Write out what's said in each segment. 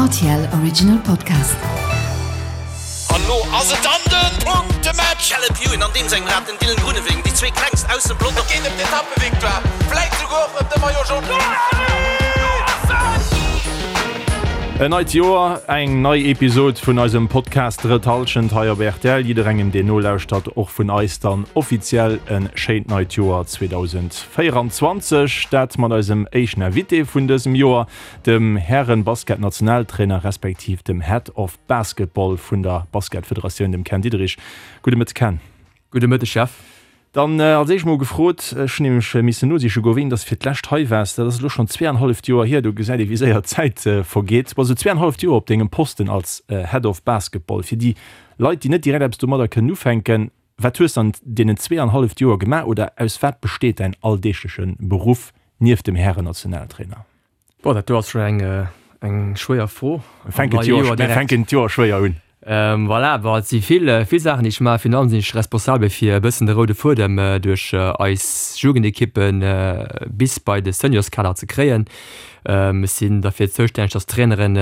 RTL Original Podcast. An lo ass et dann den Punktematch! Caleb Ewan an deem sengem Rad, den Dylan Groenewegen, déi zwee klengst aus dem Pelotong. Et geet ëm d'Etappevictoire, vläit souguer och ëm de Maillot Jaune. En neit Joer, eng nei Episod vun eisem Podcast Drëtt Hallschent hei op rtl. Jidderengem deen nolauschtert, och vun eis dann offiziell e schéint neit Joer 2024. Dat mat eisem éischten Invité vun dësem Joer, dem Hären-Basket-Nationaltrainer respektiv dem Head of Basketball vun der Basketfederatioun, dem Ken Diederich. Gudde Mëtteg Ken. Gudde Mëtteg Jeff. Dann als éischt mol gefrot, ech hunn nämlech missen nosiche goen, wéini dass de fir d'lescht hei waars. Dat ass elo schonn zweeanhalleft Joer hier. Do gesäit ee wéi séier d'Zäit vergeet. Bass elo zweeanhalleft Joer op dengem Posten als Head of Basketball. Fir déi Leit, déi net direkt eppes domadder kënnen ufänken, wat hues de an deenen zweeanhalleft Joer gemaach oder aus wat besteet däin alldeegleche Beruff nieft dem Hären-Nationaltrainer? Boah, dat do ass schon eng, eng schwéier Fro. Mir fänken d'Joer, mir fänken d'Joer schwéier un. Voilà, bon, et si vill, vill Saachen, déi ech maachen. Virun allem sinn ech responsabel fir e bëssen de roude Fuedem duerch eis Jugendekippe bis bei de Seniorskader ze kréien. Ech sinn derfir zoustänneg, dass d'Traineren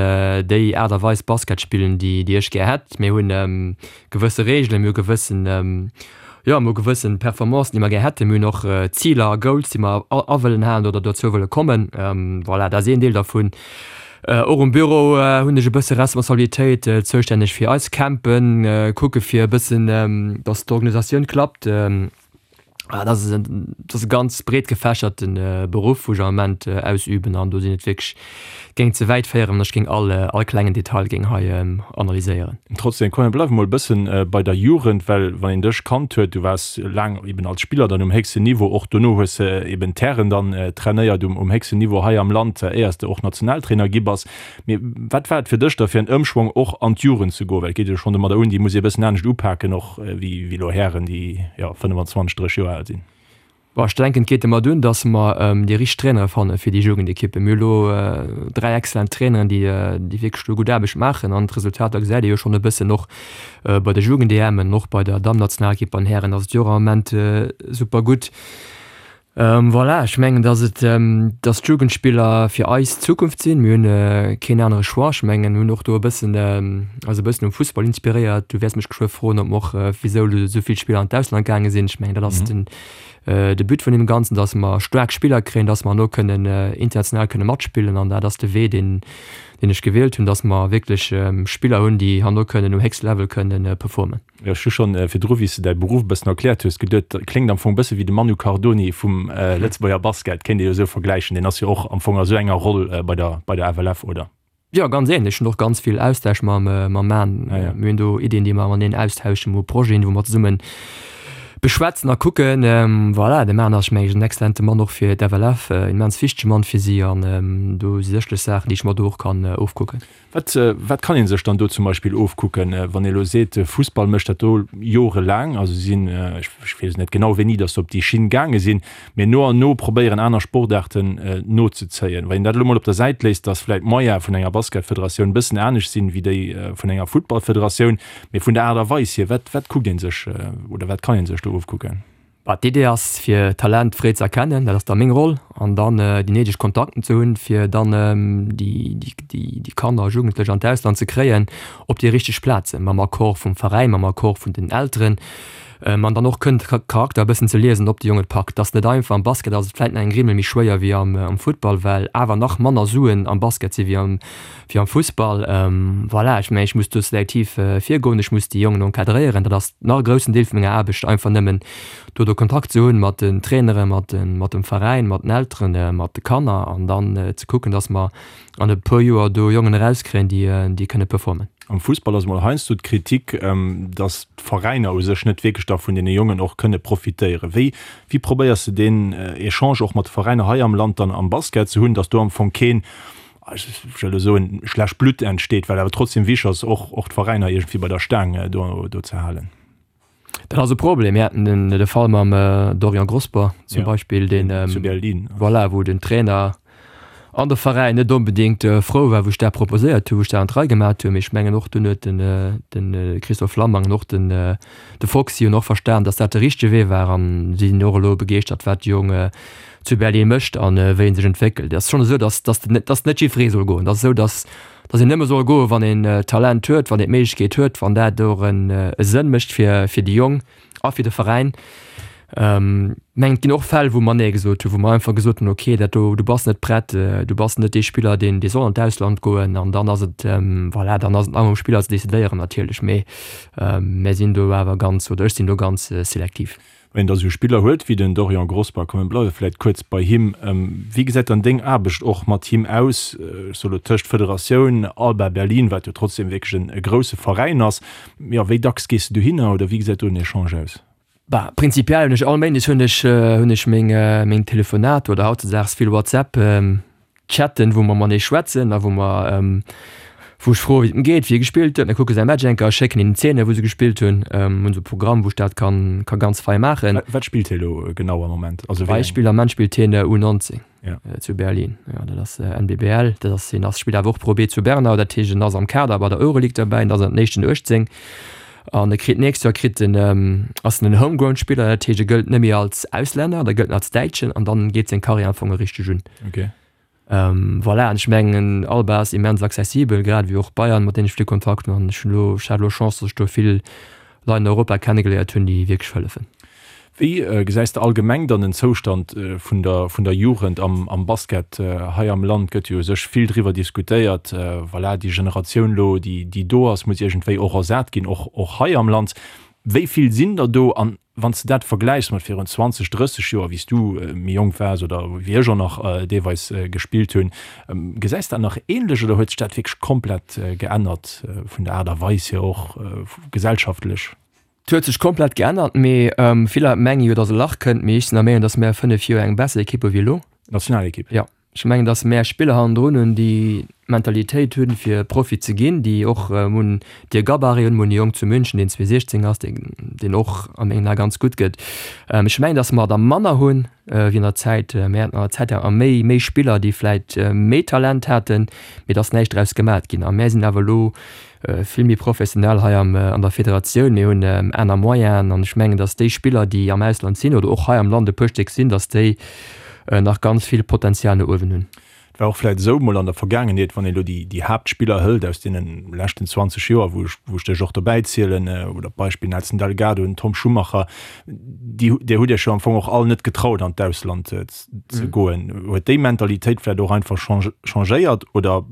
déi Aart a Weis Basket spillen, déi, déi ech gär hätt. Mir hunn gewësse Reegelen, mir hu gewëssen, jo, mir hu gewëssen Performancen, déi mer gär hätten, mir hunn och Ziler a Goals, déi mer a wëllen halen oder dozou wëlle kommen. Voilà, dat ass een Deel dervun. Och um Büro hunn ech e bësse Responsabilitéit, zoustänneg fir eis Campen, kucke fir e bëssen, datt d'Organisatioun klappt. Dat ass e, dat ass e ganz breet gefächerte Beruff, wou ech am Ament ausüben an do sinn et wierklech, géing ze wäit féieren, wann ech géing all, all klengen Detail géing hei analyséieren. Trotzdem, komm mir bleiwe mol e bëssen bei der Jugend, well wann een dech kannt huet, du waars laang eben als Spiller dann um héchsten Niveau, och dono hues de eben d'Hären dann trainéiert um, um héchsten Niveau hei am Land, éiers de och Nationaltrainer gi bass. Mee wat war et fir dech da fir en Ëmschwong och an d'Jugend ze goen? Well et geet jo schonn domadder un, déi muss ee e bëssen anescht upaken och wéi elo Hären, déi jo 25, 30 Joer al sinn. Bon, ech denken, et geet domat un, datt mer déi richteg Trainere fanne fir déi Jugendekippen. Mir hu elo 3 excellent Traineren, déi déi wierklech do gutt Aarbecht maachen an d'Resultater gesäit ee jo schonn e bëssen och bei de Jugend-EMen, och bei der Damm-Nationalekipp, bei den Hären ass et jo och am Ament super gutt. Voilà, ech mengen, dass et, dass d'Jugendspiller fir eis d'Zukunft sinn. Mir hunn keen anere Choix. Ech mengen, mir hunn och do e bëssen, eis e bëssen um Fussball inspiréiert. Du wäers mech geschwë froen, ob mer och, wisou elo esou vill Spiller an d'Ausland gaange sinn. Ech mengen, dat ass den, de But vun deem Ganzen, dass mer staark Spiller kréien, dass mer herno kënnen international kënne matspillen. An dat ass de Wee, deen, deen ech gewielt hunn, dass mer wierklech Spiller hunn, déi herno kënnen um héchste Level kënnen performen. Ech hu schonn virdru, wéi s de däi Beruff e bëssen erkläert hues, geduet, dat kléngt am Fong e bësse wéi de Manu Cardoni vum Lëtzebuerger Basket. Kéint ee jo esou vergläichen. Deen ass jo och am Fong a sou enger Roll bei der, bei der FLF, oder? Jo, ganz ähnlech. Ech hunn och ganz vill Austausch mam, mam Man. Mir hunn do Iddien, déi mer mateneen austauschen, mir hu Projeten, wou mer zesumme beschwätzen a kucken. Voilà, de Man ass, meng ech, en exzellente Mann och fir d'FLF, immens wichtege Mann fir si an do si sécherlech Saachen, déi ech mer do och kann ofkucken. Wat, wat kann ee sech dann do zum Beispill ofkucken, wann ee elo seet, de Fussball mécht dat do jorelaang, also si sinn, ech weess net genau wéini datt se op déi Schinn gaange sinn, mee no an no probéieren aner Sportaarten nozezéien. Wann een dat elo mol op der Säit léisst, datt vläicht d'Moyene vun enger Basketfederatioun e bëssen anescht sinn wéi déi vun enger Futtballfederatioun, mee vun der Aart a Weis hier, wat, wat kuckt ee sech oder wat kann ee sech do ofkucken? Bah, d'Idee ass fir Talent fréi ze erkennen, dat ass da meng Roll, an dann déi néideg Kontakten ze hunn, fir dann déi Kanner a Jugendlech an d'Ausland ze kréien op déi richteg Plazen, mam Accord vum Veräin, mam Accord vun den Elteren, an dann och kënnen de Charakter e bëssen ze liesen, ob de Jong et packt. Dat ass net einfach. Am Basket ass et vläit nach eng Grimmel méi schwéier wéi am Futtball, well awer nach manner Suen am Basket si wéi am Fussball. Voilà, ech mengen, ech muss do selektiv virgoen, ech muss déi Jongen encadréieren. Dat ass nach e groussen Deel vu menger Aarbecht, einfach nëmmen do de Kontakt ze hunn mat den Traineren, mat dem Veräin, mat den Elteren, mat de Kanner an dann ze kucken, datt mer an e puer Joer do Jongen erauskréien, déi kënne performen. Am Fussball ass emol heiansdo d'Kritik, datt d'Veräiner u sech net wierklech da vun deene Jongen och kënne profitéieren. Wéi wéi probéiers de deen Echange och mat de Veräiner hei am Land dann am Basket ze hunn, datt do am Fong keen, ech wëll elo soen, schlecht Blutt entsteet, well awer trotzdem wichtig ass, och och d'Veräiner iergendwéi bei der Staang do do ze halen. Dat ass e Problem. Mir haten den de Fall mam Dorian Grosber zum Beispill, deen zu Berlin voilà, wou den Trainer. An de Veräin net onbedéngt frou war, wou ech dat proposéiert hunn, wou ech dat an d'Rei gemat hunn. Mee ech mengen och dunn huet den de Christophe Flammang an och den de Foxy hunn och verstan, datt dat de richtege Wee war an si sinn och elo begeeschtert, wat de Jong zu Berlin mécht an wéi en sech entwéckelt. Et ass schonn esou, datt datt datt net jiddweree soll goen. Et ass esou, datt datt een nëmme soll goen, wann een Talent huet, wann een d'Méiglechkeet huet, wann dat och en e Sënn mécht fir fir déi Jong. A fir de Veräin. Mengen et ginn och Fäll, wou mer Nee gesot hunn, wou mer einfach gesot hunn, okay, dat do, du bass net prett, du bass net dee Spiller, deen, dee soll an d'Ausland goen. An dann ass et, voilà, dann ass et nach um Spiller ze decidéieren natierlech. Mee mär sinn do awer ganz, oder ech sinn do ganz selektiv. Wann een da esou Spiller huet wéi den Dorian Grosber, komm mir bleiwe vläicht kuerz bei him, wéi gesäit dann deng Aarbecht och mat him aus, ech soe lo tëscht Federatioun, Alba Berlin, wat jo trotzdem wierklech e grousse Veräin ass, Jo, wéi dacks gees de dohinner oder wéi gesäit do den Echange aus? Bah, prinzipiell hunn ech all Méindes hunn ech hunn ech meng meng Telefonater oder hautzedaags vill WhatsApp Chatten, wou mer matenee schwätzen a wou mer wou ech froe wéi et em geet, wéi e gespillt huet. Mir kucke säi Match eng Kéier, schécken him d'Zeene wou se gespillt hunn. Hunn esou e Programm wou ech dat kann ka ganz fei maachen. Wat spillt hie elo genau am Moment? Also wéi eng? Beispill, am Moment spillt hien U19. Ja. Zu Berlin. Ja, dat ass äh, NBBL. Dat ass, hien ass, spillt awer och Pro B zu Bernau. Dat heescht, en ass am Kader bei der Euroleague derbäi. En ass an den éischten 18. An e kritt nächst Joer kritt en, ähm, ass en en Homegrown-Spiller. Dat heescht, e gëllt net méi als Auslänner, da gëllt en als Däitschen an dann geet seng Karriär am Fong richteg un. Okay. Ähm, voilà, an ech mengen, Alba ass immens accessibel, grad ewéi och Bayern, mat deenen ech vill Kontakt hunn. An ech hunn elo, ech hat elo Chance, datt ech do vill Leit an Europa kennegeléiert hunn, déi wierklech hëllefen. Wéi gesäis de allgemeng dann den Zoustand vun der vun der Jugend am am Basket hei am Land? Gëtt jo u sech vill driwwer diskutéiert. Voilà, déi Generatioun elo, déi déi do ass, muss iergendwéi och ersat ginn, och och hei am Land. Wéi vill sinn der do? An wann s de dat vergläichs mat virun 20, 30 Joer, wéi s du méi jonk waars oder wéi ech och nach deelweis gespillt hunn, gesäis de dat nach änlech oder huet sech dat wierklech komplett geännert vun der Aart a Weis hier och gesellschaftlech? Et huet sech komplett geännert, mee vill Leit menge jo, datt e Lach kënnt, mee ech sinn der Meenung, datt mär 5 Joer eng besser Ekipp hu wéi elo. Nationalekipp? Jo, ech mengen, datt mär Spiller hannendrun hunn, déi d'Mentalitéit hunn, fir Profi ze ginn, déi och hunn de Gabarit hunn. Mir hunn e Jong zu München, deen 2016 ass, deen och a mengen Ae ganz gutt gëtt. Ech mengen, datt mer der manner hunn wéi an der Zäit. Mir haten an der Zäit awer méi, méi Spiller, déi vläit méi Talent haten, mee et ass näischt draus gemat ginn. A mär sinn awer elo vill méi professionell hei am an der Federatioun. Mir hunn aner Moyenen an ech mengen, datt déi Spiller, déi am Ausland sinn oder och hei am Land e puer Stéck sinn, datt déi nach ganz vill Potenzial no uewen hunn. Et war och vläit esou mol an der Vergaangenheet, wann ee lo déi déi Haaptspiller hëlt aus deene leschten 20 Joer, wou ech wou ech dech och dobäi zielen, oder Beispill Nelson Delgado, den Tom Schumacher, déi där hutt Iech jo am Fong och all net getraut an d'Ausland ze goen. Huet déi Mentalitéit vläit och einfach changéiert oder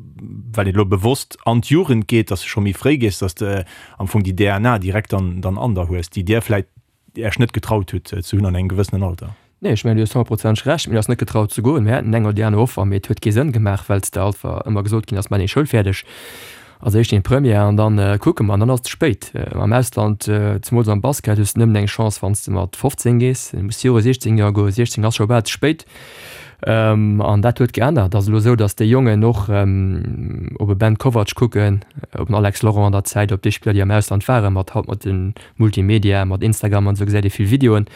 well een elo bewosst an d'Jugend geet, dass de scho méi fréi gees, dass de am Fong déi DNA direkt dann dann an der hues, déi dir vläit Iech net getraut hutt ze hunn an engem gewëssenen Alter? Nee, ech mengen, du hues honnertprozenteg Recht. Mir ass net getraut ze goen. Mir haten eng oder déi aner Offer, mee et huet kee Sënn gemaach, well s de einfach ëmmer gesot ginn ass, Maach deng Schoul fäerdeg als éischt deng Première an dann kucke mer. An dann ass et ze spéit. Am Ausland, zemools am Basket, hues de nëmmen eng Chance, wann s de mat 15 gees. Du muss viru 16 Joer goen. 16 ass scho bal ze spéit. An dat huet geännert. Et ass elo esou, datt déi Jongen och op e Ben Kovac kucken, op en Alex Laurent an der Zäit, op déi Spiller, déi am Ausland waren, mat haut mat de Multimedia, mat Instagram an esou gesäit ee vill Videoen.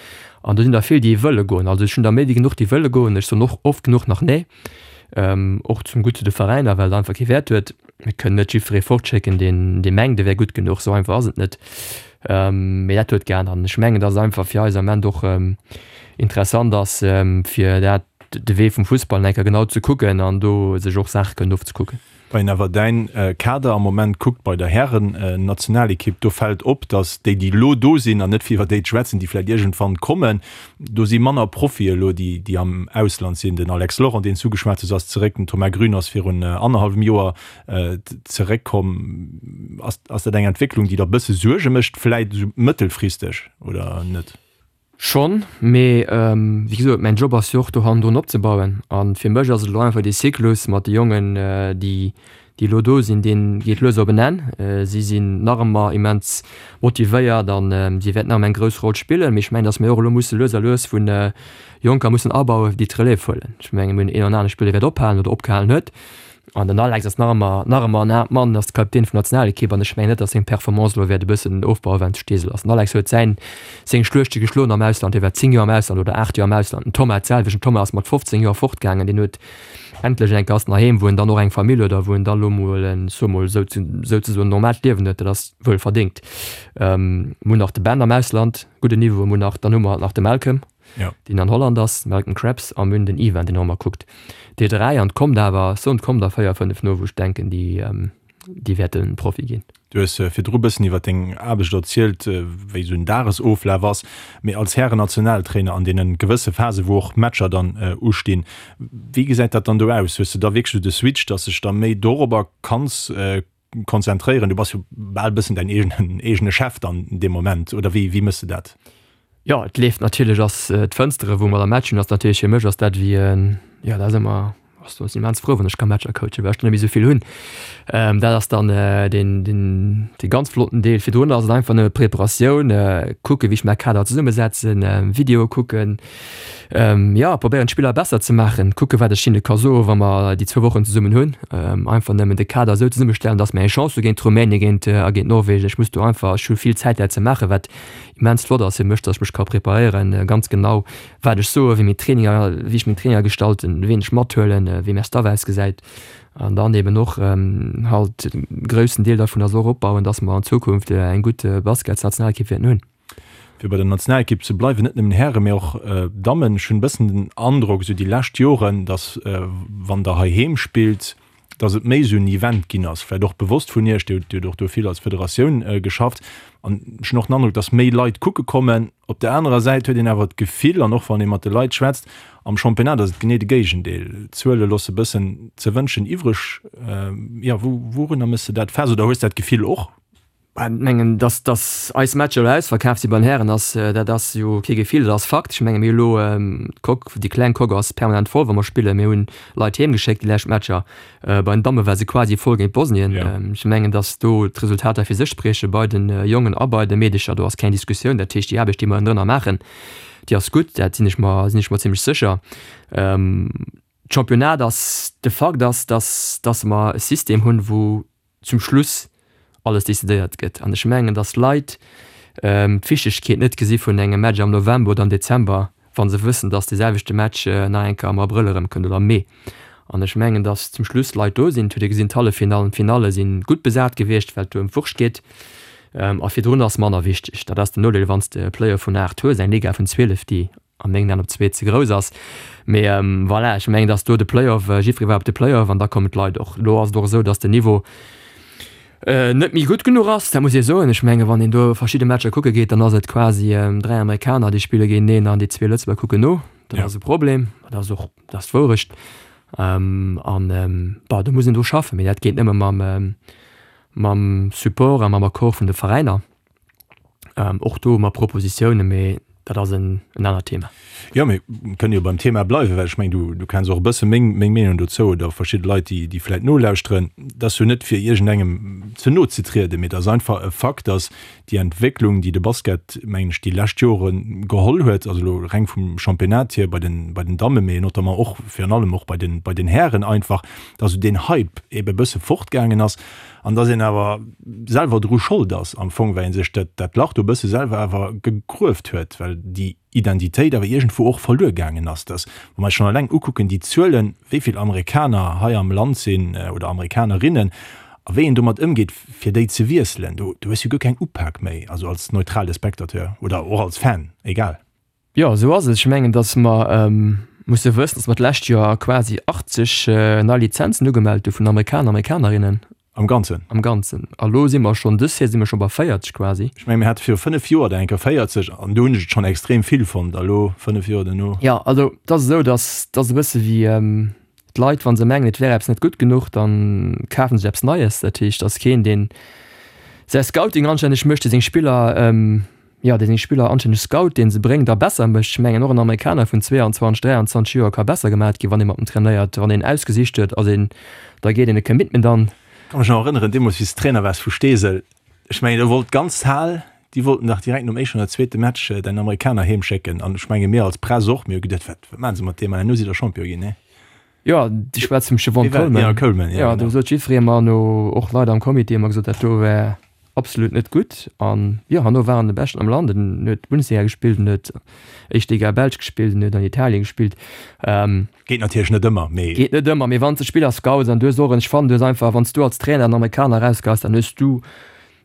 An do sinn der vill, déi wëlle goen. Also ech hunn der méi wéi genuch, déi wëlle goen. Ech soen och oft genuch nach nee. Och zum Gutt zu de Veräiner, well et einfach kee Wäert huet. Mir kënnen net jiddweree fortschécken, deen dee mengt, e wär gutt genuch. Esou einfach ass et net. Mee dat huet geännert. An ech mengen, datt et einfach fir eis am Ament och interessant ass, fir dat, de Wee vum Fussball eng Kéier genau ze kucken an do sech och Saache kënnen ofzekucken. Wann een awer däin Kader am Moment kuckt bei der Hären-Nationalekipp, do fält op, datt déi, déi elo do sinn, an net fir iwwer déi ze schwätzen, déi vläicht iergendwann kommen, do si manner Profie elo, déi, déi am Ausland sinn. Den Alex Laurent, deen s du ugeschwat hues, ass zeréck, den Thomas Grün ass virun annerhallwem Joer zeréckkomm. Ass, ass dat eng Entwécklung, déi der e bësse Suerge mécht, vläicht esou mëttelfristeg oder net? Schonn, mee wéi gesot, mäin Job ass jo och do hannendrun opzebauen. A fir mech ass et elo einfach dee Zyklus mat de Jongen, déi déi elo do sinn, dee geet lues op en Enn. Si sinn nach ëmmer immens motivéiert a si wäerten nach ëmmer eng grouss Roll spillen. Mee ech mengen, datt mir och elo musse lues a lues vu Jonker mussen abauen, déi d'Relève huelen. Ech mengen, mir hunn een an anere Spiller, dee wäert ophalen oder opgehalen huet. An den Alex ass nach ëmmer, nach ëmmer en aart Mann, ass de Kapitän vun der Nationalekipp an ech mengen net, datt seng Performance elo wäert e bëssen ofbauen, well en zu Steesel ass. Den Alex huet säin, seng Schluechte geschloen am Ausland, hie war 10 Joer am Ausland oder 8 Joer am Ausland. Den Thomas d'selwecht, den Thomas ass mat 15 Joer fortgaangen, deen huet endlech eng Kéier ass en heiheem, wou en dann och eng Famill huet a wou en dann elo mol en, soe mol esou, souzesoen normaalt Liewen huet, dat ass wuel verdéngt. Mir hunn nach de Ben am Ausland, gudden Niveau, mir hunn nach, dann hu mer nach de Malcolm. ja. deen an Holland ass, Malcolm Krebs, a mir hunn den Ivan, deen och ëmmer kuckt. Déi 3, an et kommt awer, ech soen, et kommt der 4, 5 no, wou ech denken, déi, déi wäerte Profi ginn. Du hues virdru bëssen iwwer deng Aarbecht erzielt, wéi esou en Dagesoflaf ass. Mee als Hären-Nationaltrainer an deene gewësse Phase wou och Matcher dann ustinn, wéi gesäit dat dann do aus? Hues de da wierklech esou de Switch, dass de dech da méi dorobber kanns konzentréieren? Du bass jo bal bëssen däin eegenen eegene Chef dann dee Moment, oder wéi wéi mëss de dat? Jo, et leeft natierlech, ass d'Fënstere wou mer da Match hunn, ass natierlech fir mech ass dat wéi en, jo dat ass ëmmer, ass do sinn immens frou wann ech ka Matcher coachen, well ech dann net méi esou vill hunn. Dat ass dann deen deen dee ganz flotten Deel. Virdrun ass et einfach nëmme Preparatioun, kucke wéi ech mäi Kader zesummesetzen, Videoe kucken, Jo, probéieren d'Spiller besser ze maachen, kucke wat ech hinne ka soen, wa mer déi zwou Wochen zesummen hunn. Einfach nëmmen de Kader esou zesummestellen, datt mer eng Chance hu géint Rumänien, géint a géint Norwegen. Ech muss do einfach, ech hu vill Zäit dat ze maachen, wat immens flott ass fir mech, datt ech mech ka preparéieren, ganz genau wat ech soen, wéi meng Traininger, wéi ech meng Traininger gestalten, wien ech mathuelen, wéi mäi Staff ausgesäit. An dann eben och halt e groussen Deel dervun ass och opbauen, datt mer an Zukunft eng gutt Basketsnationalekipp wäerten hunn. Fir bei der Nationalekipp ze bleiwen, net nëmmen Hären, mee och Dammen, ech hunn e bëssen den Androck, esou déi lescht Joren, datt wann Der heiheem spillt, datt et méi esou en Event ginn ass, vläicht och bewosst vun Iech, Dir hutt och do vill als Federatioun geschafft, an ech hunn och den Androck, datt méi Leit kucke kommen. Op der anerer Säit huet een awer d'Gefill, an och wann ee mat de Leit schwätzt, am Championnat ass et genee de Géigendeel, d'Zuele loosse bëssen ze wënschen iwwreg. Jo, wourunner méchs de dat fest oder hues dat Gefill och? Ech mengen, dass, dass eis Matcher elo ausverkaaft si bei den Hären, ass, dat ass jo kee Gefill, dat ass Fakt. Ech menge mir hu elo d'Coque, déi kleng Coque ass permanent voll, wa mer spillen. Mir hunn Leit heem geschéckt déi lescht Matcher. Bei den Damme war se quasi voll géint Bosnien. Ech mengen, dass do d'Resultater fir sech sprieche bei den Jongen a bei de Meedecher. Do ass keng Diskussioun. Dat heescht, déi Aarbecht, déi mer ënnendrënner maachen, déi ass gutt. Dat sinn ech mer, sinn ech mer zimlech sécher. D'Championnat ass, de Fakt ass, dass, dass mer e System hunn, wou zum Schluss alles decidéiert gëtt. An ech mengen, datt Leit d'Wichtegkeet net gesi vun engem Match am November oder am Dezember, wa se wëssen, datt dee selwechte Match nach eng Kéier am Abrëll erëmkënnt oder am Mee. An ech mengen, datt zum Schluss Leit do sinn. Et huet ee gesinn, d'Halleffinallen, d'Finalle si gutt besat gewiescht, well et do ëm d'Wurscht geet. A virdrun ass manner wichteg. Dat ass den Nodeel, wann s de e Playoff vun 8 hues, eng Liga vun 12, déi a mengen Aen op zwee ze grouss ass. Mee voilà, ech mengen, datt do de Playoff, jiddweree war op de Playoff an da kommen d'Leit och. Elo ass et och esou, datt den Niveau net méi gutt genuch ass, dat muss ee soen. Ech menge wann een do verschidde Matcher kucke geet, dann ass et quasi 3 Amerikaner, déi spille géinteneen an déi zwee Lëtzebuerger kucken no. Dat ass e Problem, dat ass och, dat ass d'Wourecht. An bon, do muss een dru schaffen, mee dat geet nëmme mam mam Support a mam Accord vun de Veräiner. Och do hu mer Propositiounen, mee dat ass en anert Thema. Jo, mir kënnen jo beim Thema bleiwen, well ech mengen, du, du kenns och e bësse meng, meng Meenung dozou oder verschidde Leit, déi, déi vläicht nolauschteren. Dat ass jo net, fir iergendengem ze no ze trieden, mee et ass einfach e Fakt, dass déi Entwécklung, déi de Basket, mengen ech, déi lescht Jore geholl huet, also elo reng vum Championnat hier bei den, bei den Dammen, mee notamment och, virun allem och bei den, bei den Hären einfach, dass esou deen Hype eebe e bësse fortgaangen ass. An dass een awer selwer dru Schold ass am Fong, well ee sech dat, dat Lach do e bësse selwer awer gegrueft huet, well déi Identitéit awer iergendwou och verluer gaangen ass. Dass, wa mer eis schonn eleng ukucken, déi Zuelen, wéi vill Amerikaner hei am Land sinn oder Amerikanerinnen a wéi een domat ëmgeet, fir déi ze wiesselen, do, do hues du guer keng Upak méi, also als neutrale Spectateur oder och als Fan, egal. Jo, esou ass et. Ech mengen, datt mer musse wëssen, datt mer d'lescht Joer quasi 80 nei Lizenzen ugemellt hu vun Amerikaner, Amerikanerinnen. Am Ganzen? Am Ganzen. A lo si mer schonn, dës Saison si mer scho bei 40 quasi. Ech mengen, mir hate viru 5 Joer der eng Kéier 40 an do hunn ech et schonn extrem vill fonnt. A lo, 5 Joer duerno. Jo, also et ass esou, datt et ass e bësse wéi d'Leit, wa se mengen, et wär eppes net gutt genuch, da kafe se eppes Neies. Dat heescht, et ass keen, deen säi Scouting anstänneg mécht, dee seng Spiller, jo, dee seng Spiller anstänneg scout, dee se bréngt a besser mécht. Ech mengen, och en Amerikaner vun 22, 23 Joer ka besser gemat ginn, wann ee mat em trainéiert, wann een ausgesicht huet, ass een, da geet een e Commitment an. Ka mech nach erënneren, deemools wéi s de Trainer waars vu Steesel, ech mengen do wollt d'ganz Hal, déi wollten dach direkt nom éischten oder zweete Match däin Amerikaner heem schécken an ech menge mir als Press och, mir hu geduet, wat, wat maache se mat deem an herno sidd der Champion ginn, nee? Jo, du schwätz vum Chevon Coleman. Ja, Coleman, ja. Ja, do sot jiddweree mer no, och Leit am Comité hu mer gesot, dat do wär absolut net gutt. An jo, herno war en de Beschten am Land. En huet Bundesliga gespillt, en huet éischt Liga Belsch gespillt, en huet an Italien gespillt. Geet natierlech net ëmmer, mee. Geet net ëmmer, mee wann s de Spiller scouts an du hues och en, ech fannen, du hues einfach, wann s du als Trainer en Amerikaner erausgeheis, dann hues du,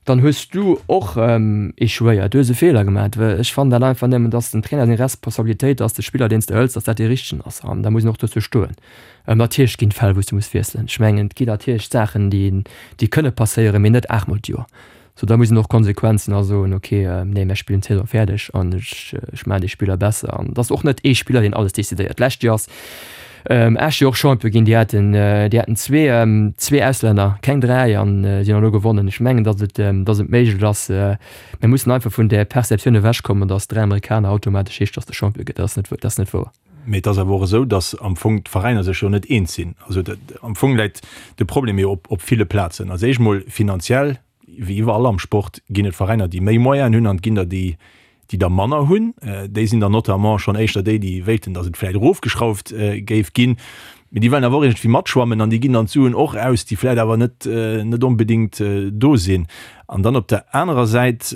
dann hues du och echouéiert, du hues e Feeler gemaach. Well ech fannen dat einfach nëmmen, dass dem Trainer seng Responsabilitéit ass, de Spiller, deen s de hëls, dass dat dee richtegen ass. An da muss een och dozou stoen. Natierlech ginn et Fäll, wou s du muss wiesselen. Ech mengen, et ginn natierlech Saachen, déi, déi kënne passéieren, mee net aachtmol d'Joer. Sou, da muss een och konsequent sinn a soen, ok, nee, mär spillen d'Saison fäerdeg an ech, ech maachen dee Spiller besser. An et ass och net ee Spiller, deen alles decidéiert. D'lescht Joer ass Esch jo och Champion ginn, déi haten, déi haten zwee, zwee Auslänner, keng 3, an si hunn elo gewonnen. Ech mengen, datt et, datt et méiglech ass. Mir mussen einfach vun där Perceptioun ewechkommen, datt 3 Amerikaner automatesch heescht, datt de Champion gëtt. Dat ass net, dat ass net wouer. Mee et ass awer och esou, datt am Fong d'Veräiner sech jo net eens sinn. Also am Fong läit de Problem jo op ville Plazen. Als éischt mol finanziell, wéi iwwerall am Sport, ginn et Veräiner, déi méi Moyenen hunn an et ginn der, déi déi der manner hunn. Déi sinn dann notamment schonn éischter déi, déi wéilten, datt et vläicht erofgeschrauft géif ginn. Mee déi wëllen awer och iergendwéi matschwammen an déi ginn dann d'Suen och aus, déi vläicht awer net net onbedéngt do sinn. An dann op der anerer Säit,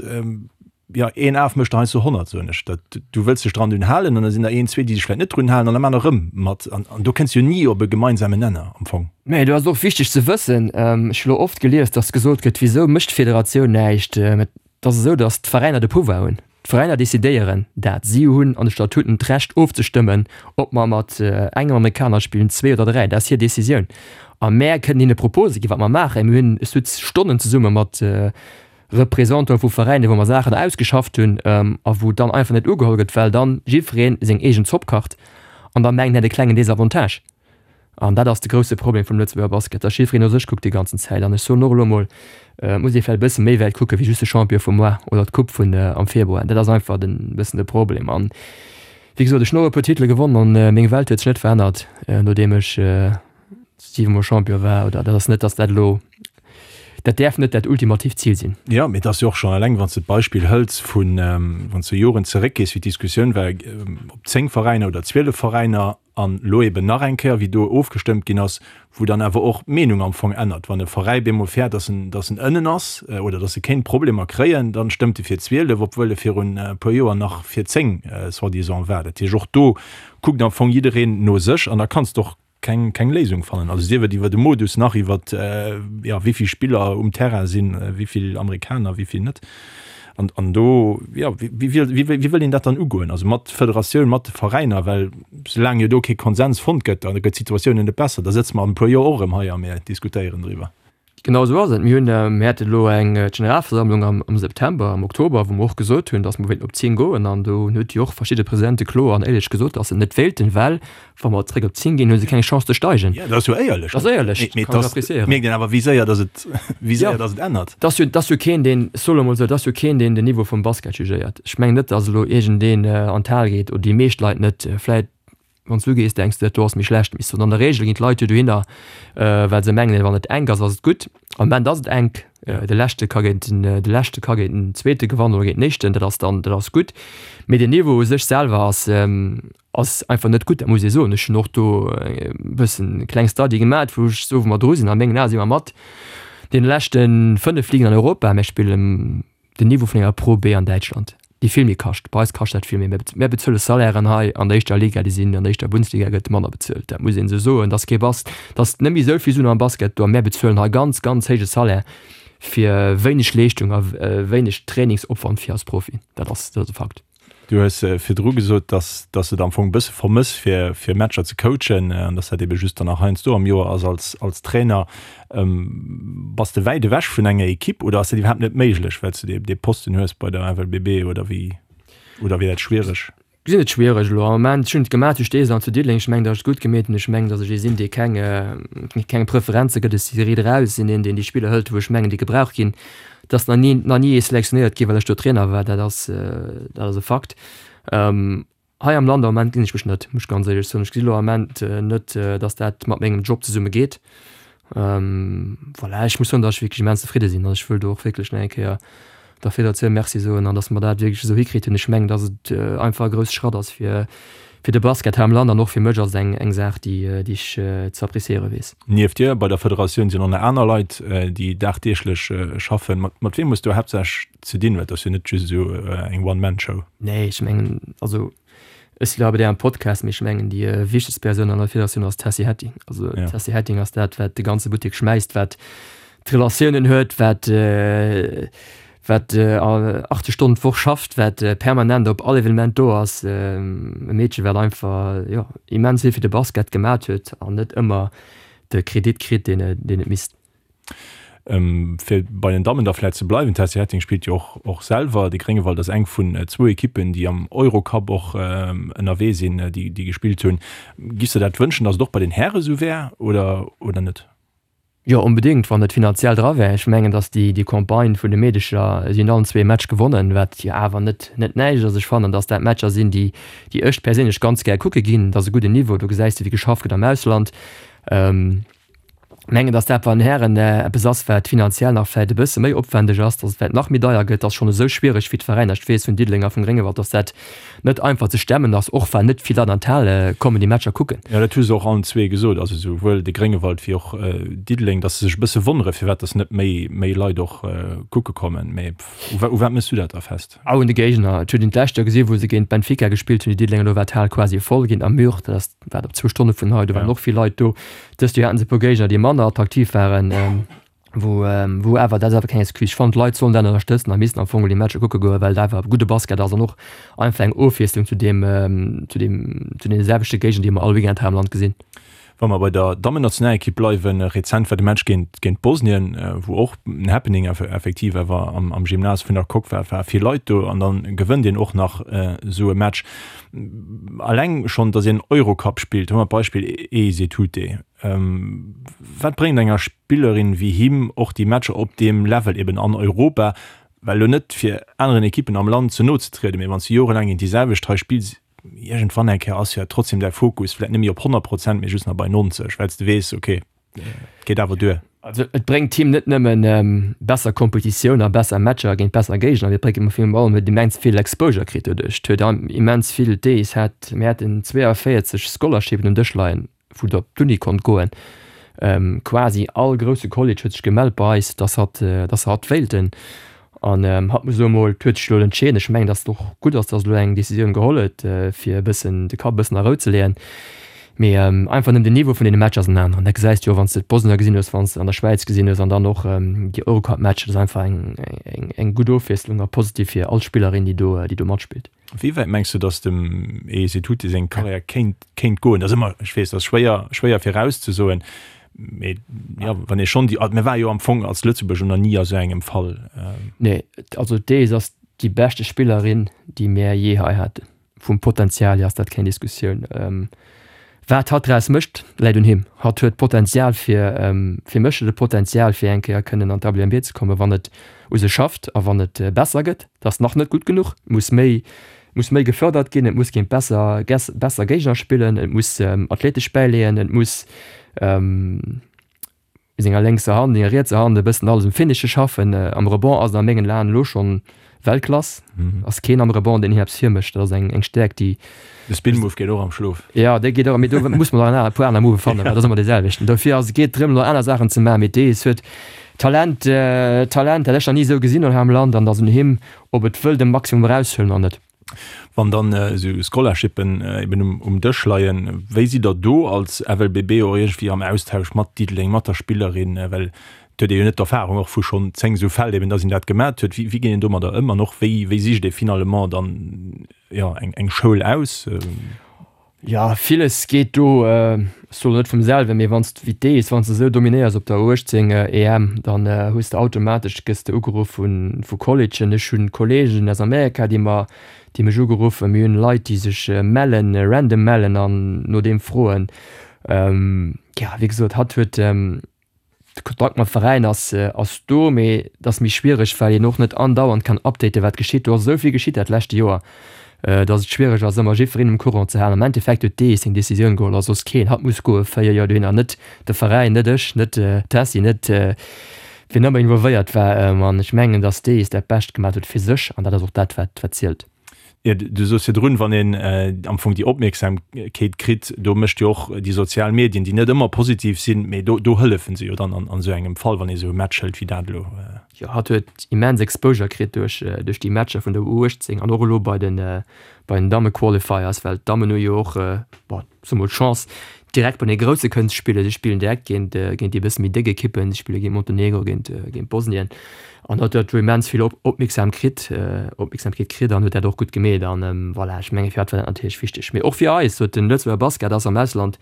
Jo, een Af mécht der heiansdo 100, soen ech. Dat, du wëlls dech dran dunn halen an da sinn der een, zwee, déi sech vläicht net drun halen an da maachen der erëm mat. An, an do kënns du jo ni op e gemeinsamen Nenner am Fong. Mä do ass et och wichteg ze wëssen, ech hu lo oft gelies, datt gesot gëtt, Wisou mécht d'Federatioun näischt? Mä et ass esou, datt d'Veräiner de Pouvoir hunn. D'Veräiner decidéieren dat. Si hunn an de Statuten d'Recht ofzestëmmen, ob mer mat engem Amerikaner spillen, zwee oder dräi. Dat ass hir Decisioun. A mär kënnen hinne Propose ginn, wat mer maachen. Mir hunn, ech sutz Stonnen zesumme mat Représentanten vu Veräiner, wou mer Saachen ausgeschafft hunn a wou dann einfach net ugeholl gëtt, well dann jiddweree seng eegen Zopp kacht an da mengt en hätt e klengen Désavantage. An dat ass de grousse Problem vum Lëtzebuerger Basket, dass jiddwereen no sech kuckt déi ganzen Zäit. An ech soen och elo emol, et muss ee vläicht e bësse méi wäit kucke wéi just de Champion vum Mois oder d'Coupe vun am Februar. Dat ass einfach e bëssen de Problem. An wéi gesot, ech hunn och e puer Titele gewonnen an meng Welt huet sech net verännert, nodeem ech siwemol Champion war. Oder dat ass net, dass dat elo Dat däerf net dat ultimatiivt Zil sinn. Jo, mee et ass jo och schonn eleng, wann s de d'Beispill hëls vun, wann s de Joren zeréckgees, wéi d'Diskussioun war, ob 10 Veräiner oder 12 Veräiner, an elo eben nach eng Kéier, wéi do ofgestëmmt ginn ass, wou dann awer och d'Meenung am Fong ännert. Wann e Veräi bemol fäert, dass en, dass en ënnen ass oder dass e kéint Problemer kréien, dann stëmmt e fir 12, obwuel e virun e puer Joer nach fir 10 soi-disant war. Dat heescht, och do kuckt am Fong jiddereen no sech an da kanns de och keng, keng Léisung fannen. Also sief et iwwer de Modus nach iwwer ja, wéi vill Spiller um Terrain sinn, wéi vill Amerikaner, wéi vill net. An, an do ja, wéi, wéi, wéi, wéi wëll een dat dann ugoen? Also mat Federatioun, mat de Veräiner, well soulaang jo do kee Konsens fonnt gëtt, da gëtt d'Situatioun net besser. Da sëtze mer an e puer Joer och erëm hei a mir diskutéieren driwwer. Genau esou ass et. Mir hunn, mir hate elo eng Generalversammlung am am September, am Oktober, wou mer och gesot hunn, datt mer wéilten op 10 goen. An do huet jo och verschidde Presidente kloer an éierlech gesot, datt se net wéilten, well wa mer zréck op 10 ginn, hu se keng Chance ze steigen. Jo, dat ass jo éierlech. Dat ass éierlech, Mee kann ech appréciéieren. Mierkt een awer, wéi séier datt et, wéi séier datt et ännert. Et ass jo, et ass jo keen, deen, ech soe lo emol esou, et ass jo keen, deen den Niveau vum Basket jugéiert. Ech mengen net, datt elo iergendeen an d'Hal geet, oder déi meescht Leit net, vläicht Wann s du gees, denks de, dat do ass méi schlecht. Mee an der Regel ginn d'Leit jo dohinner, well se mengen, wann et enk ass, ass et gutt. Am Moment ass et enk. De Leschte ka géint den, de Leschte ka géint den Zweete gewannen oder géint den Éischten. Dat ass dann, dat ass gutt. Mee den Niveau u sech selwer ass, ass einfach net gutt, dat muss ee soen. Ech hunn och do e bëssen e kleng Study gemat, wou ech soe wou mer dru sinn. A mengen Ae si mer mat deene leschte 5 Ligen an Europa. Mir spillen Den Niveau vun enger Pro B an Däitschland, déi vill méi kascht. Bei eis kascht dat vill méi. Mär bezuele Salairen hei an der éischter Liga, déi sinn an der éischter Bundesliga gëtt manner bezuelt. Dat muss een esou soen. Et ass kee Bas, et ass net méi esou vill Suen am Basket do a mär bezuelen hei ganz, ganz héije Salaire fir wéineg Leeschtung a wéineg Trainingsopwand fir als Profi. Dat ass, dat ass e Fakt. Du hues virdru gesot, dass dass de et am Fong e bësse vermëss fir fir Matcher ze coachen an dass dat ebe just dann nach heiansdo am Joer ass als als Trainer. Bass de wäit ewech vun enger Ekipp oder ass dat iwwerhaapt net méiglech, well s de dee Posten hues bei der FLBB oder wéi oder wier dat schwiereg? Gesinn et schwiereg elo am Moment. Ech hunn et gemaach zu Steesel an zu Diddeleng. Ech mengen, datt ech et gutt gemeet hunn. Ech mengen, datt ech ee sinn, dee keng keng Preferenze gëtt. Ech si riit eraus, sinn een, deen déi Spiller hëlt, wou ech mengen, déi gebraucht ginn. Et ass nach ni nach ni ee selektionéiert ginn, well ech do Trainer war. Dat ass dat ass e Fakt. Hei am Land am Moment gesinn ech mech net, muss ech ganz éierlech soen. Ech gesi lo am Moment net, datt dat mat mengem Job zesumme geet. Voilà, ech muss soen, datt ech wierklech immens zefridde sinn an ech wëll do och wierklech nach eng Kéier der Federatioun Merci soen an datt mer dat wierklech esou hikritt hunn. Ech mengen, datt et einfach e grousse Schratt ass fir. Fir de Basket hei am Land an och fir mech ass et eng eng Saach, déi déi ech ze appréciéiere weess. Nieft dir bei der Federatioun sinn och nach aner Leit, déi dagdeeglech schaffen. Mat mat weem hues du haaptsächlech ze dinn? Well et ass jo net just esou eng One-Man-Show. Nee, ech mengen, also ech si lo bei dir am Podcast, mee ech mengen déi wichtegst Persoun an der Federatioun ass d'Tessy Hetting. Also d'Tessy Hetting ass dat, wat de ganze Buttek schmäisst, wat d'Relatiounen huet, wat wat 80 Stonnen d'Woch schafft, wat permanent op all Evenement do ass, e Meedche wat einfach jo immens vill fir de Basket gemat huet an net ëmmer de Kredit kritt, deen et misst. Fir bei den Dammen da vläit ze bleiwen, d'Tessy Hetting spillt jo och och selwer. De Gréngewald ass eng vun zwou Ekippen, déi am Eurocup och ënnerwee sinn, déi gespillt hunn. Giffs de dat wënschen, datt et och bei den Häre sou wär oder oder net? Jo, onbedéngt, wann et finanziell dra wär. Ech mengen, datt déi déi Campagne vun de Meedecher, si hunn allen zwee Match gewonnen, wat jo awer net net näischt ass. Ech fannen, datt dat Matcher sinn, déi déi ech perséinlech ganz gär kucke ginn. Dat ass e gudden Niveau, do gesäis de wéi geschafft gëtt am Ausland. Mengen, datt dat bei den Hären eppes ass, wat finanziell nach vläicht e bësse méi opwändeg ass, datt et vläicht nach méi deier gëtt. Dat ass schonn esou schwiereg fir d'Veräiner. Ech weess vun Diddeleng a vum Gréngewald, datt dat net einfach ze stemmen ass, och well net vill Leit an d'Hal kommen déi Matcher kucken. Jo, dat hu se och allen zwee gesot, also souwuel de Gréngewald wéi och Diddeleng, datt se sech e bësse wonnere firwat datt net méi méi Leit och kucke kommen. Mee u wat méchs du dat da fest? Au un de Géigner. Et huet een d'lescht Joer gesi wou se géint Benfica gespillt hunn, déi Diddelenger, do war d'Hal quasi voll géint Namur, dat ass wat op zwou Stonne vun hei, do waren och vill Leit do. Dëst Joer haten se e puer Géigner déi manner attraktiv waren. Wou, wou awer, dat ass awer keng Excuse, ech fannen d'Leit sollen dat ënnerstëtzen a missten am Fong déi Matcher kucke goen, well et awer gudde Basket ass an och einfach eng Ofwiesslung zu deem, zu deem, zu deene selwechte Géigner, déi mer all Weekend hei am Land gesinn. Wa mer bei der Dammennationalekipp bleiwen, rezent war de Match géint, géint Bosnien, wou och en Happening effektiv awer am, am Gymnase vun der Coque war, war vill Leit do an dann gewënnt een och nach esou e Match. Alleng schonn, datt een Eurocup spillt, hu mer d'Beispill Eise Tute. Wat bréngt enger Spillerin wéi him och déi Matcher op deem Level eben an Europa? Well elo net fir aneren Ekippen am Land ze no ze trieden, mee wann s de jorelaang géint déi selwecht hei spills, iergendwann eng Kéier ass jo trotzdem däi Fokus vläit net méi op 100 Prozent, mee just nach bei 90, well s de weess, okay, et geet awer duer. Also et bréngt him net nëmmen besser Kompetitioun a besser Matcher géint besser Géigner, mee et bréngt him virun allem huet immens vill Exposure kritt doduerch. Et huet immens vill, d'Ace hat, mir haten 42 Scholarshipen um Dësch leien, wou der op d'Uni konnt goen. Quasi all grousse College huet sech gemellt bei eis, dass hatt, dass se hatt wéilten. An hatt muss elo emol, huet sech elo entscheeden. Ech mengen, dass et och gutt ass, dass e elo eng Decisioun geholl huet, fir e bëssen de Kapp e bëssen a Rou ze leeën. Mee einfach nëmmen den Niveau vun deene Matcher ass en aneren. Dat gesäis de jo, wann s de d'Bosnier gesinn hues, wann s de an der Schwäiz gesinn hues an dann och déi Eurocup-Matcher. Dat ass einfach eng, eng, eng gutt Ofwiesslung a positiv fir all Spillerin, déi do, déi do matspillt. Wéi wäit mengs du, datt dem Eze Tuti seng Karriär kéint, kéint goen? Dat ass ëmmer, ech weess, dat ass schwéier, schwéier virauszesoen, mee jo, wann ee schonn déi, mir ware jo am Fong als Lëtzebuerger nach ni a sou engem Fall. Nee, also d'Ace ass déi beschte Spillerin, déi mär jee hei haten. Vum Potenzial hier ass dat keng Diskussioun. Wat hatt draus mécht, läit un him. Hatt huet d'Potenzial fir, fir mech huet e Potenzial fir eng Kéier kënnen an d'WNBA ze kommen, wann et u sech schafft a wann et besser gëtt. Dat ass nach net gutt genuch, et muss méi, muss méi gefërdert ginn, et muss géint besser, besser Géigner spillen, et muss athletesch bäileeën, et muss senger lénkser Hand, senger rietser Hand e bëssen alles um Finishe schaffen. Am Rebond ass en a mengen Aen elo schonn Weltklass. Ass keen am Rebond, deen him eppes virmécht. Dat ass eng eng Stäerkt, déi. De Spin Move geet och am Schlof. Jo, dee geet och, mee do muss mer nach e puer aner Move fannen, well dat ass ëmmer dee selwechten. Dofir ass, geet drëm, elo aner Saachen ze maachen. Mee dees huet Talent, Talent, dat ech nach ni esou gesinn hunn hei am Land an et ass un him, ob et wëll de Maximum eraushuelen oder net. Wann dann esou Scholarshippen eben um Dësch leien, wéi sidd Der do als FLBB och iergendwéi am Austausch mat Diddeleng, mat der Spillerin? Well et huet ee jo net d'Erfahrung och vu schonn 10 esou Fäll eben, datt een dat gemat huet. Wéi geet een domadder ëm an och wéi wéi sicht ee finalement dann, jo, eng Schoul aus? Jo, villes geet do, ech soen net vum selwen, mee wann s de wéi d'Ees, wann s de esou dominéiers op der U18 EM, dann hues de automatesch, gëss de ugeruff vu Collegeen. Ech hunn Kolleegen aus Amerika, déi mer, déi mech ugeruffen. Mir hunn Leit, déi sech mellen, random mellen an no deem froen. Jo, wéi gesot, hatt huet. De Kontakt mam Veräin ass ass do, mee et ass méi schwiereg, well een och net andauernd kann updaten, wat geschitt. Do ass esou vill geschitt dat leschte Joer, datt et schwiereg ass, ëmmer jiddwereen um Courant ze halen. Am Endeffekt huet dee seng Decisioun geholl a soss keen. Hatt muss goe 4 Joer dohinner, net de Veräin, net ech, net d'Tessy, net wien ëmmer involvéiert war. An ech mengen, datt dee dat Bescht gemaach huet fir sech an dat ass och dat, wat wat zielt. Jo, du soos virdrun, wann een am Fong déi Opmierksamkeet kritt, do mécht jo och déi sozial Medien, déi net ëmmer positiv sinn, mee do, do hëllefen se jo dann an esou engem Fall, wann ee esou e Match hëlt wéi dat elo. Jo, hatt huet immens Exposure kritt duerch, duerch déi Matcher vun der U18 an och elo bei den, bei den Damme-Qualifiers, well d'Dammen hu jo och, bon, soe mol d'Chance direkt bei de Grousse kënnen ze spillen. Si spillen direkt géint géint déi e bësse méi déck Ekippen, si spille géint Montenegro, géint géint Bosnien an huet dat do immens vill Opmierksam kritt, Opmierksamkeet kritt an huet dat och gutt gemeet an voilà, ech menge fir hatt war dat natierlech wichteg. Mee och fir eis, sot den Lëtzebuerger Basket ass am Ausland,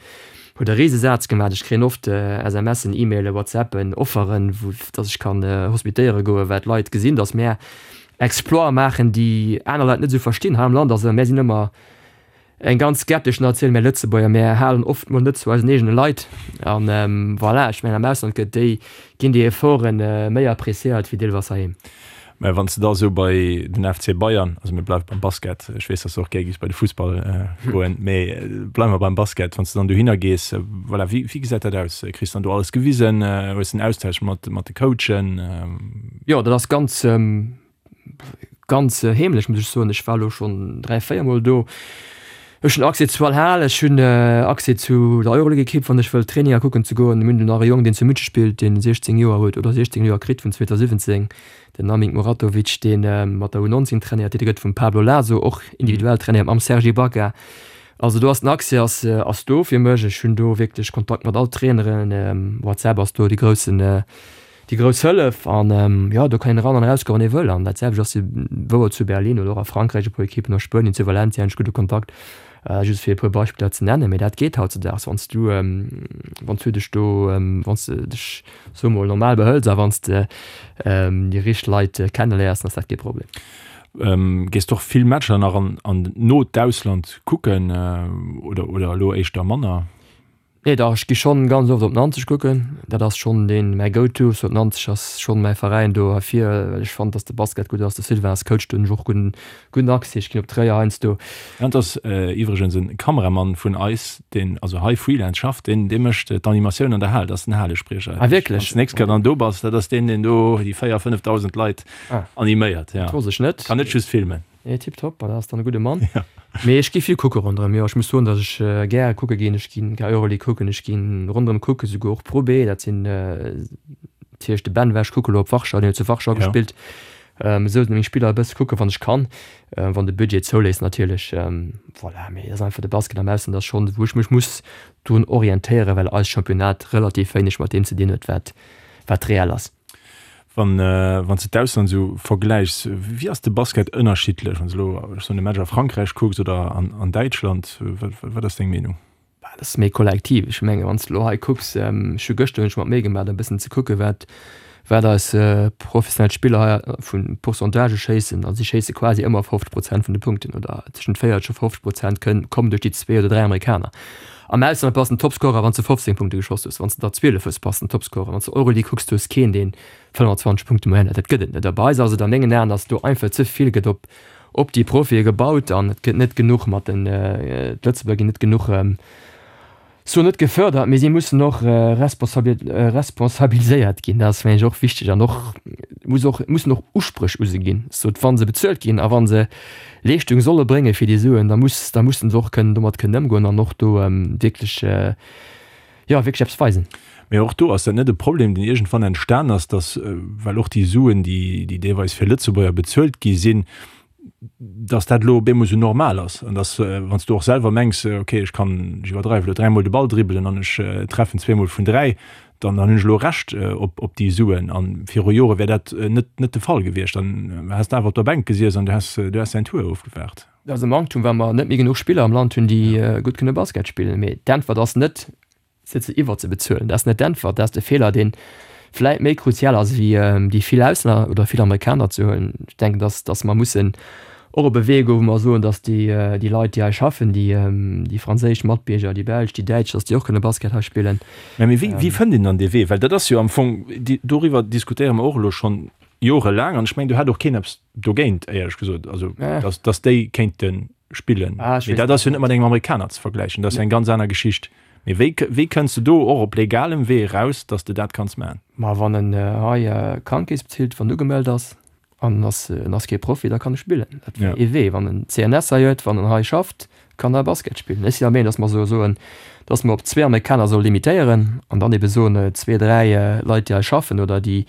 huet e Risesaz gemaach. Ech kréien oft SMSen, E-Mailen, WhatsAppen, Offeren, wou datt ech kann hospitéiere goen, well d'Leit gesinn, datt mär Exploite maachen, déi aner Leit net esou verstinn hei am Land. Also mär sinn ëmmer Eng ganz skeptesch Natioun, mär Lëtzebuerger, mär halen oft mol net zu eisen eegene Leit. An voilà, ech mengen am Ausland gëtt déi, ginn déi Efforten méi appréciéiert wéi deelweis heiheem. Mä wann s de da esou bei den FC Bayern, also mir bleiwe beim Basket, ech weess, datt s de och gär giffs bei de Fussball goen, mä bleiwe mer beim Basket, wann s de dann dohinner gees, voilà, wéi, wéi gesäit dat aus? Kriss dann do alles gewisen? Hues de en Austausch mat, mat de Coachen? Jo, dat ass ganz, Ganz heemlech muss ech soen. Ech war elo schonn 3, 4 mol do. Ech hunn Accès zu all Hal, ech hunn Accès zu der Euroleague-Ekipp, wann ech wëll Traininger kucken ze goen. Mir hunn do nach e Jong, deen zu München spillt, deen 16 Joer huet oder 16 Joer kritt vun 2017, den Namik Muratovic, dee mat der U19 trainéiert. Dee gëtt vum Pablo Laso och individuell trainéiert, mam Serge Ibaka. Also do ass den Accès ass ass do fir mech. Ech hunn do wierklech Kontakt mat all Traineren. WhatsApp ass do de groussen Déi grouss Hëllef an jo, do kann een eran an eraus goen, wann ee wëll. An dat selwecht ass jo wouer zu Berlin oder och a Frankräich e puer Ekippen, a Spuenien zu Valencia hunn ech gudde Kontakt, just fir e puer Beispiller ze nennen. Mee dat geet hautzedaags, wann s du, wann s du dech do, wann s de dech, soe mol, normal behëls a wann s de déi richteg Leit kenneléiers, dann ass dat kee Problem. Gees de och vill Matcher nach an an no d'Ausland kucken oder oder elo éischter manner? Nee dach, ech gi schonn ganz oft op Nanzeg kucken. Dat ass schonn deen mäi Go-To. Sou Nanzeg ass schonn mäi Veräin do heifir, well ech fannen, dass de Basket gutt ass. De Sylvain ass Coach, do hunn ech och gudden gudden Accès. Ech ginn op Tréier heiansdo. Dat ass iwwregens en Kameramann vun eis, deen also hei Freelance schafft, deen dee mécht d'Animatioun an der Hal, dat ass den Halespriecher. Ah wierklech? Wann s de nächst Kéier dann do bass, dat ass deen, deen do déi 4, 5.000 Leit animéiert, jo. Dat wosst ech net. Kann net just filmen. Nee, tiptop, dat ass dann e gudde Mann. Ja. Mee ech gi vill kucke ronderëm, jo. Ech muss soen, datt ech gäre kucke ginn. Ech ginn gär Euroleague kucken, ech ginn ronderëm kucke, souguer och Pro B. Dat sinn natierlech de Ben war ech kucke lo op Warschau, deen huet zu Warschau gespillt. Esou sinn meng Spiller e bësse kucke wann ech kann, wann de Budget zouléisst natierlech. Voilà, mee et ass einfach de Basket am Ausland ass schonn, wou ech mech muss drun orientéieren, well eist Championnat relativ wéineg mat deem ze dinn huet, wat wat reell ass. Wann wann s de d'Ausland esou vergläichs, wéi ass de Basket ënnerschiddlech, wann s de elo, ech soen, e Match a Frankräich kucks oder an an Däitschland? Wat wat ass deng Meenung? Bah, dat ass méi kollektiv. Ech menge wann s de elo hei kucks, ech hu gëschter hunn ech mer d'Méi gemaach e bëssen ze kucke wat wat eis professionell Spiller hei vu Pourcentagë schéissen. A si schéisse quasi ëmmer 50 Prozent vun de Punkten oder tëschent 40 a 50 Prozent kënn kommen duerch déi zwee oder dräi Amerikaner. Am Ausland bass den Topscorer wann s de 15 Punkte geschoss hues, wann s de der 12 hues bass den Topscorer, wann s de Euroleague kucks du hues keen deen 25 Punkte Moyenne huet, dat gëtt et net. A bei eis ass et a mengen Aen, datt do einfach ze vill gëtt op op déi Profie gebaut an et gëtt net genuch mat den, d'Lëtzebuerger ginn net genuch, soen net gefördert, mee si mussen och responsabiliséiert ginn, dat ass mengen ech och wichteg an och muss och mussen och Uspréch u se ginn, sot wa se bezuelt ginn a wa se Leeschtung solle brénge fir déi Suen, da muss, da mussen se och kënnen domat kënnen ëmgoen an och do wierklech, jo, wierklech eppes weisen. Mee och do, ass dat net e Problem, deen iergendwann entstan ass, dass, well och déi Suen, déi, déi deelweis fir Lëtzebuerger bezuelt gi sinn, dass dat elo op eemol esou normal ass an dass, wann s du och selwer mengs, okay, ech kann, ech iwwerdreiwe elo, dräimol de Ball dribbelen an ech treffen zweemol vun dräi, dann hunn ech elo Recht op déi Suen. A viru Jore wär dat net net de Fall gewiescht. Dann häss de awer op der Bänk gesiess an du häss du häss däin Tour ofgewaart. Dat ass e Manktum, well mer net méi genuch Spiller am Land hunn, déi gutt kënne Basket spillen. Mee d'Äntwert ass net, se ze iwwerzebezuelen. Dat ass net d'Äntwert. Dat ass de Feeler, dee vläit méi kruzial ass, wéi déi vill Auslänner oder vill Amerikaner ze huelen. Ech denken, dass dass mer mussen och op e Wee goen, wou mer soen, dass déi déi Leit, déi hei schaffen, déi déi franséisch Matbierger, déi belsch, déi däitsch, dass déi och kënne Basket hei spillen. Mä wéi wéi fënnt een dann dee Wee? Well dat ass jo am Fong, doriwwer diskutéiere mer och elo schonn jorelaang an ech mengen, do hätt och keen eppes dogéint, éierlech gesot, also dass dass déi kéinte spillen. Mee dat ass jo net mat engem Amerikaner ze vergläichen, dat ass jo eng ganz aner Geschicht. Mee wéi wéi kënns de do och op legalem Wee eraus, dass de dat kanns maachen? Ma wann en hei Krankekeess bezilt, wann en ugemellt ass. An en ass, en ass kee Profi, da kann e spillen. Dat wär ee Wee. Wann en CNS hei huet, wann en hei schafft, kann e Basket spillen. Ech sinn der Meenung, datt mer soe soen, datt mer op zwee Amerikaner solle limitéieren an dann ebe soen, zwee, dräi Leit, déi hei schaffen oder déi,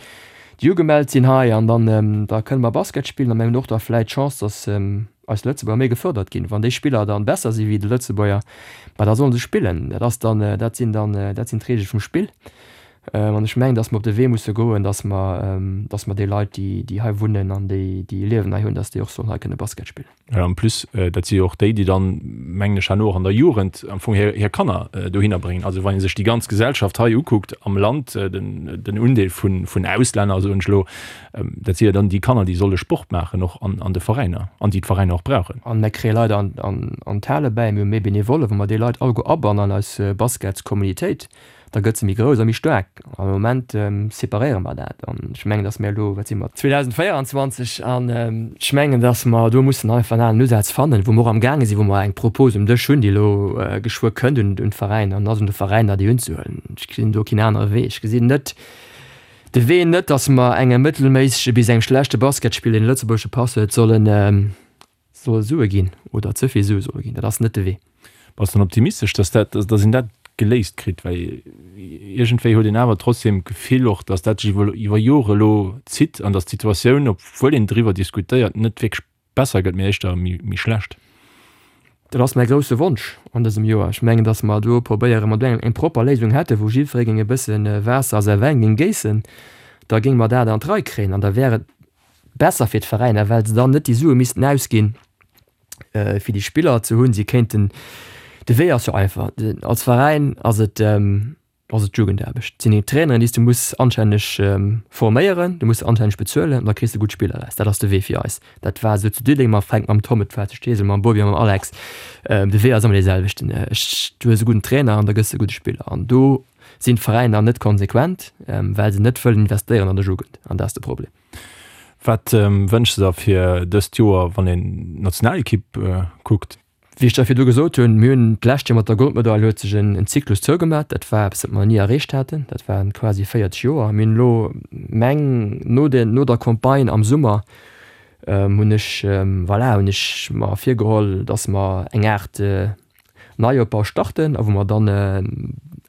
déi ugemellt sinn hei an dann, da kënne mer Basket spillen a mir hunn och da vläicht d'Chance, datt eis Lëtzebuerger méi gefërdert ginn. Wann déi Spiller dann besser si wéi de Lëtzebuerger, ma da solle se spillen. Dat ass dann, dat sinn dann, dat sinn d'Reegele vum Spill. An ech mengen, dass mer op de Wee musse goen, dass mer, dass mer déi Leit, déi, déi hei wunnen an déi, déi e Liewen hei hunn, dass déi och sollen hei kënne Basket spillen. Ja, en plus, dat si jo och déi, déi dann, mengen ech, herno och an der Jugend am Fong hir, hir Kanner dohinner bréngen. Also wann ee sech déi ganz Gesellschaft hei ukuckt am Land, den, den Undeel vun, vun Auslänner, soen ech elo, dat si jo dann déi Kanner, déi solle Sport maachen och an, an de Veräiner an déi d'Veräiner och brauchen. An mir kréie Leit an, an, an d'Hale bäi, mir hu méi Benevollen, wa mer déi Leit alleguer abannen an eis Basketscommunitéit, da gëtt se méi grouss a méi staark. Am Moment separéiere mer dat an ech mengen, datt mir elo, wat si mer, 2024, an ech mengen, datt mer do mussen einfach en aneren Usaz fannen, wou mer och amgaange sinn, wou mer eng Propos um Dësch hunn, déi elo geschwë kënnt un d'Veräiner, an et ass un de Veräiner, déi unzehuelen. Ech gesinn do keen anere Wee. Ech gesinn net de Wee net, datt mer engem mëttelméissege bis engem schlechte Basketspiller, deen e lëtzebuergesche Pass huet, sollen Solle Sue ginn oder ze vill Sue solle ginn. Dat ass net de Wee. Bass dann optimistesch, dass dat, dass een dat geléist kritt? Well iergendwéi huet een awer trotzdem d'Gefill och, dass dat sech iwwer, iwwer Jore elo zitt an dass d'Situatioun, obwuel een driwwer diskutéiert, net wierklech besser gëtt, mee éischter méi, méi schlecht. Dat ass mäi grousse Wonsch an dësem Joer. Ech mengen, dass mer do probéieren, mat engem eng propper Léisung hätten, wou jiddweree géing e bësse Waasser a säi Wäin géing géissen, da géinge mer dat an d'Rei kréien an da wär et Besser fir d'Veräiner, well se dann net déi Sue missten ausginn, fir déi Spiller ze hunn. Si kéinten, de Wee ass jo einfach, als Veräin ass et, ass et d'Jugendaarbecht. Et sinn déi Traineren, déi s du muss anstänneg forméieren, du muss se anstänneg bezuelen an da kriss de gutt Spiller eraus. Dat ass de Wee fir eis. Dat war esou zu Diddeleng mam Fränk, mam Tom, et war zu Steesel mam Bobby a mam Alex. De Wee ass ëmmer dee selwechten. Ech, du hues e gudden Trainer an da gëss de e gudde Spiller. An do sinn d'Veräiner net konsequent, well se net wëllen investéieren an der Jugend. An dat ass de Problem. Wat wënschs de der fir dëst Joer, wann een d'Nationalekipp kuckt? Wéi ech der virdu gesot hunn, mir hunn d'lescht Joer mat der Goldmedail huet sech en Zyklus zougemat. Dat war eppes, wat mer ni erreecht haten. Dat waren quasi 40 Joer. Mir hunn elo meng, no den, no der Campagne am Summer hunn ech, voilà, hunn ech mer virgeholl, datt mer eng Aart Neiopbau starten a wou mer dann,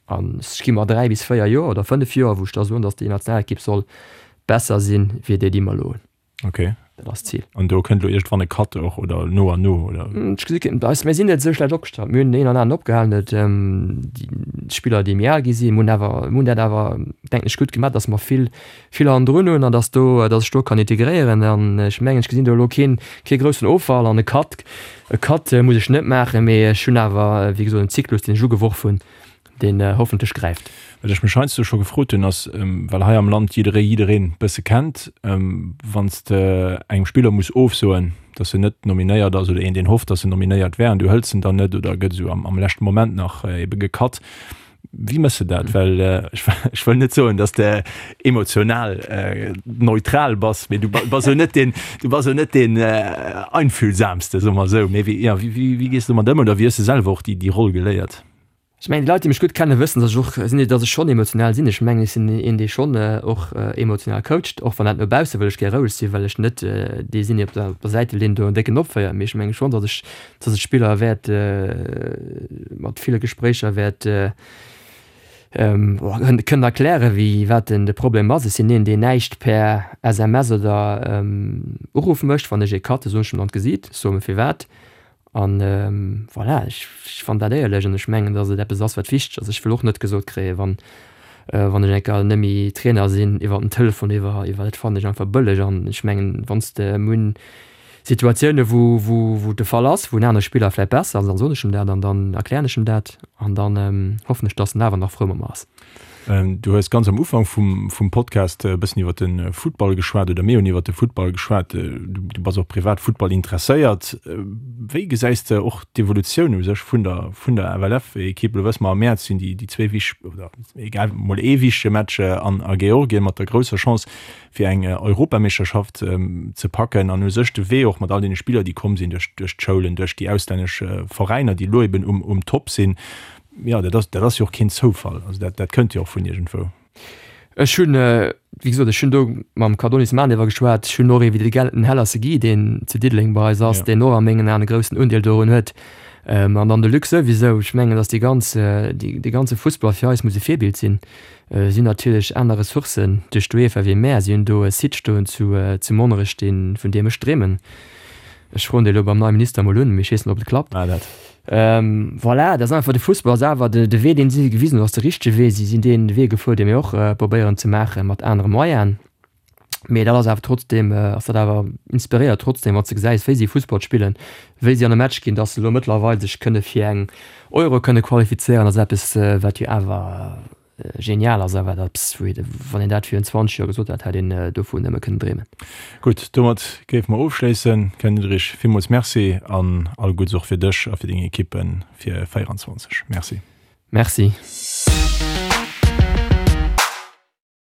an ech gi mer 3 bis 4 Joer oder 5 Joer, wou ech da soen, datt déi Nationalekipp soll besser sinn, wéi déi, déi mer elo hunn. Ok. Dat ass d'Zil. An do kënnt elo iergendwann e Cut och, oder no an no, oder? Ech gesi keen. Eis, mir sinn net esou schlecht opgestallt. Mir hunn deen een an aneren opgehalen, et déi Spiller, déi méi al gi sinn. Mir hunn awer, mir hunn dat awer, denken ech, gutt gemaach, datt mer vill, vill hannendrun hunn an datt do, datt ech do kann integréieren. An ech mengen, ech gesinn do elo keen, kee groussen Offall an e Cut, e Cut muss ech net maachen, mee ech hunn awer, wéi gesot, en Zyklus, deen ech ugeworf hunn, deen hoffentlech gräift. Wat ech mech heiansdo scho gefrot hunn, ass, well hei am Land jidderee jiddereen bësse kennt, wann s de engem Spiller muss ofsoen, datt en net nominéiert ass oder een deen hofft, datt en nominéiert wär an du hëls en dann net oder gëtt esou am leschte Moment nach ebe gecut, wéi méchs de dat? Well ech wëll net soen, datt s de emotional neutral bass, mee du bass jo net deen, du bass jo net deen einfühlsamste, soe mer esou. Mee wéi, jo, wéi gees de domat ëm oder wéi hues de selwer och déi Roll geléiert? Ech mengen, déi Leit, déi mech gutt kennen, wëssen, datt ech och sinn, datt ech schonn emotional sinn. Ech mengen, ech sinn een, dee schonn och emotional coacht, och wann dat no bausse wëll ech gär roueg sinn, well ech net dee sinn, dee op der op der Säitelinn do en décken opféiert. Mee ech menge schonn, datt ech, datt ech d'Spiller wäert mat ville Gespréicher wäert kënnen erklären, wéi wat den de Problem ass. Ech sinn een, deen näischt per SMS oder Uruff mécht. Wann ech ee cutte, soen ech em an d'Gesiit, ech soe em firwat. An voilà, ech fannen dat éierlech an ech mengen, datt et eppes ass, wat wichteg ass. Ech wëll och net gesot kréien, wann wann ech eng Kéier net méi Trainer sinn, iwwer den Telefon, iwwer iwwer dat fannen ech einfach bëlleg. An ech mengen, wann s de mir hunn Situatioune wou wou wou de Fall ass, wou en anere Spiller vläicht besser ass, dann soen ech em dat an dann erklären ech em dat an dann hoffen ech, datt en awer nach frou mat mer ass. Du hues ganz am Ufank vum, vum Podcast e bëssen iwwer de Futtball geschwat oder mir hunn iwwer de Futtball geschwat. Du bass och privat Futtball interesséiert. Wéi gesäis de och d'Evolutioun u sech vun der, vun der FLF-Ekipp? Elo wësse mer, am Mäerz sinn déi, déi zwee wich oder egal, mol ee wichtege Match an a Georgien mat der grousser Chance fir eng Europameeschterschaft ze packen an u sech de Wee och mat all deene Spiller, déi komm sinn duerch, duerch d'Schoulen, duerch déi auslännesch Veräiner, déi elo eben um, um Top sinn. Jo, dat ass, dat ass jo och keen Zoufall. Also dat, dat kënnt jo och vun iergendwou. Ech hunn, wéi gesot, ech hunn do mam Cardonis Manever geschwat. Ech hunn och ee wéi de Gellten Hellerse Guy, deen zu Diddeleng bei eis ass, deen och a mengen Aen e groussen Undeel dorun huet. An dann de Luc souwisou. Ech mengen, datt déi ganz, dee ganze Fussball fir eis muss e Virbild sinn. Si hunn natierlech aner Ressourcen duerch d'UEFA wéi mär. Si hunn do e Site stoen zu zu Monnerech, dee vun deem ech dreemen. Ech froen dee elo beim neie Minister emol un, mee ech weess net, ob et klappt. Voilà, dat ass einfach, de Fussball ass awer de Wee, deen si gewisen hunn, ass de richtege Wee. Si sinn dee Wee gefuer, dee mir och probéieren ze maachen, mat anere Moyenen. Mee dat ass awer trotzdeem, ass dat awer inspiréiert trotzdeem, wann s de gesäis, wéi si Fussball spillen, wéi si an e Match ginn, dass se elo mëttlerweil sech kënne fir eng Euro kënne qualifizéieren, ass eppes, wat jo awer genial ass a wat eppes, wou ee, wann een dat virun 20 Joer gesot hätt, hätt een dovun nëmme kënnen dreemen. Gutt, domat géife mer ofschléissen. Ken Diederich, villmools Merci an all Gudds och fir dech a fir deng Ekippe fir 24. Merci. Merci.